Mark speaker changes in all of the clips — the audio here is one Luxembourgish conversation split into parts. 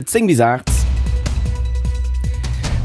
Speaker 1: 10 bis 8.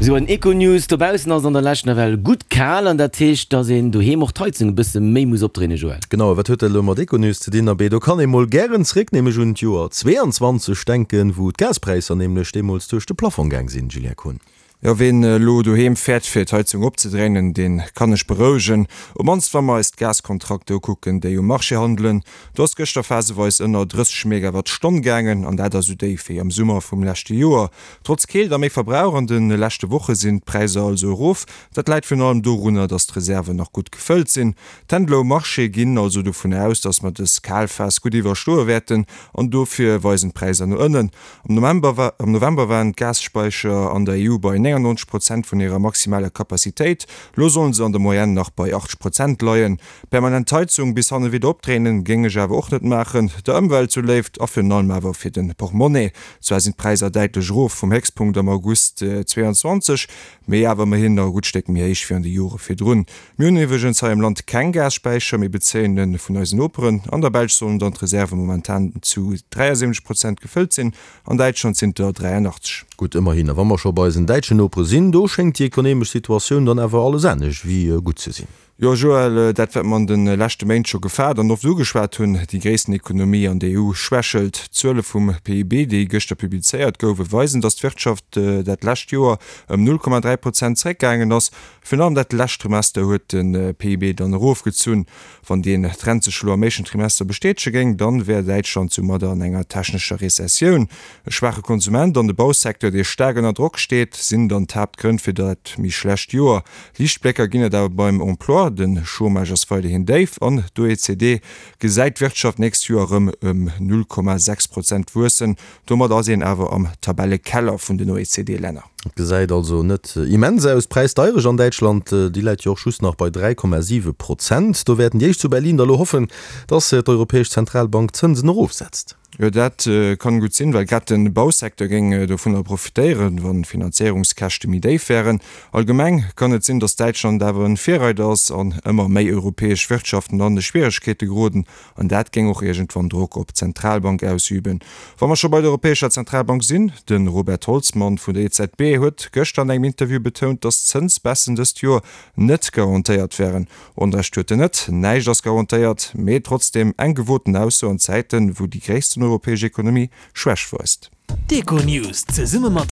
Speaker 1: Sou en Econews, Dobaussen ass et an der Lescht nawell gutt kal an dat heescht, dass een doheem och d'Heizung e bësse méi muss opdréinen, Joël.
Speaker 2: Genau, a wat huet dat elo mat Econews ze dinn? Abee, do kann ee mol gären zréck nämlech un d'Joer 22 denken, wou d'Gaspräisser nämlech deemools duerch de Plafong gaang sinn, Julien Kohn.
Speaker 3: Jo, ween elo doheem fäert fir d'Heizung opzedréinen, deen kann ech berouegen. Op mannst wa mer eis d'Gaskontrakter ukucken, déi um Marché handelen. Do ass gëschter phaseweis ënner 30 Megawatt Stonn gaangen, an dat ass esou déif wéi am Summer vum leschte Joer. Trotz Keelt a méi Verbrauch an de leschte Woche sinn d'Präisser also erof. Dat läit virun allem dorunner, datt d'Reserven nach gutt gefëllt sinn. D'Händler um Marché ginn also dovun aus, datt mer dës kal Phas gutt iwwerstoe wäerten, an dofir weisen d'Präisser no ënnen. Am November am November waren d'Gasspäicher an der EU bei 99 Prozent vun hirer maximaler Capacitéit. Lo sollen se an der Moyenne nach bei 80 Prozent leien. Permanent d'Heizung bis hanne widder opdréinen, géing ech awer och net maachen, der Ëmwelt zu Léift a virun allem awer fir de Portmonnaie. Zwar sinn d'Präisser däitlech erof vum Héchstpunkt am August 22, mee awer ëmmerhin nach e gutt Stéck méi héich wéi an de Jore virdrun. Mir hunn iwwregens hei am Land keng Gasspäicher, mir bezéien e vun eisen Noperen. An der Belsch sollen dann d'Reserve momentan zu 73 Prozent gefëllt sinn, an Däitschland sinn et der 83.
Speaker 2: Gutt, ëmmerhin. A wa mer scho bei eisen däitschen Nopere sinn, do schéngt déi ekonemesch Situatioun dann awer alles anescht wéi gutt ze sinn.
Speaker 3: Jo, Joël, dat wat mer an de leschte Méint scho gefaart an oft ugeschwat hunn, déi gréissten Ekonomie an der EU schwächelt. D'Zuele vum PIB, déi gëschter publizéiert gouwen, weisen, datt d'Wirtschaft dat lescht Joer ëm 0,3 Prozent zeréckgaangen ass. Virun allem dat lescht Trimester huet de PIB dann erofgezunn. Wann deen Trend sech elo am éischten Trimester bestätege géing, dann wär Däitschland soumadder an enger technescher Rezessioun. E schwaache Konsument an de Bausecteur, dee staark ënner Drock steet, sinn dann d'Haaptgrënn fir dat méi schlecht Joer. Liichtblécker ginn et awer beim Emploi, de Chômage ass weiderhin déif an d'OECD gesäit d'Wirtschaft d'nächst Joer erëm ëm 0,6 Prozent wuessen. Domat ass een awer am Tabellekeller vun den OECD-Länner.
Speaker 2: Et gesäit also net immens aus. D'Präisdeierecht an Däitschland, déi läit jo och just nach bei 3,7 Prozent. Do wäerten déi éischt zu Berlin da lo hoffen, datt d'Europäesch Zentralbank d'Zënsen erofsetzt.
Speaker 3: Jo, dat kann gutt sinn, well grad de Bausecteur géing dovunner profitéieren, wann d'Finanzéierungskäschte méi déif wären. Allgemeng kann et sinn, datt Däitschland awer en Virreider ass an ëmmer méi europäesch Wirtschaften an Schwieregkeete geroden. An dat géing och iergendwann Drock op d'Zentralbank ausüben. Wa mer scho bei der Europäescher Zentralbank sinn, De Robert Holzmann vun der EZB huet gëschter an engem Interview betount, datt d'Zënsbaissen dëst Joer net garantéiert wären. Onrecht huet en net, näischt ass garantéiert, mee trotzdeem eng gewoten Ausso an Zäiten, wou déi gréissten europäesch Ekonomie Schwächt weist.
Speaker 4: D'Econews zesumme mat.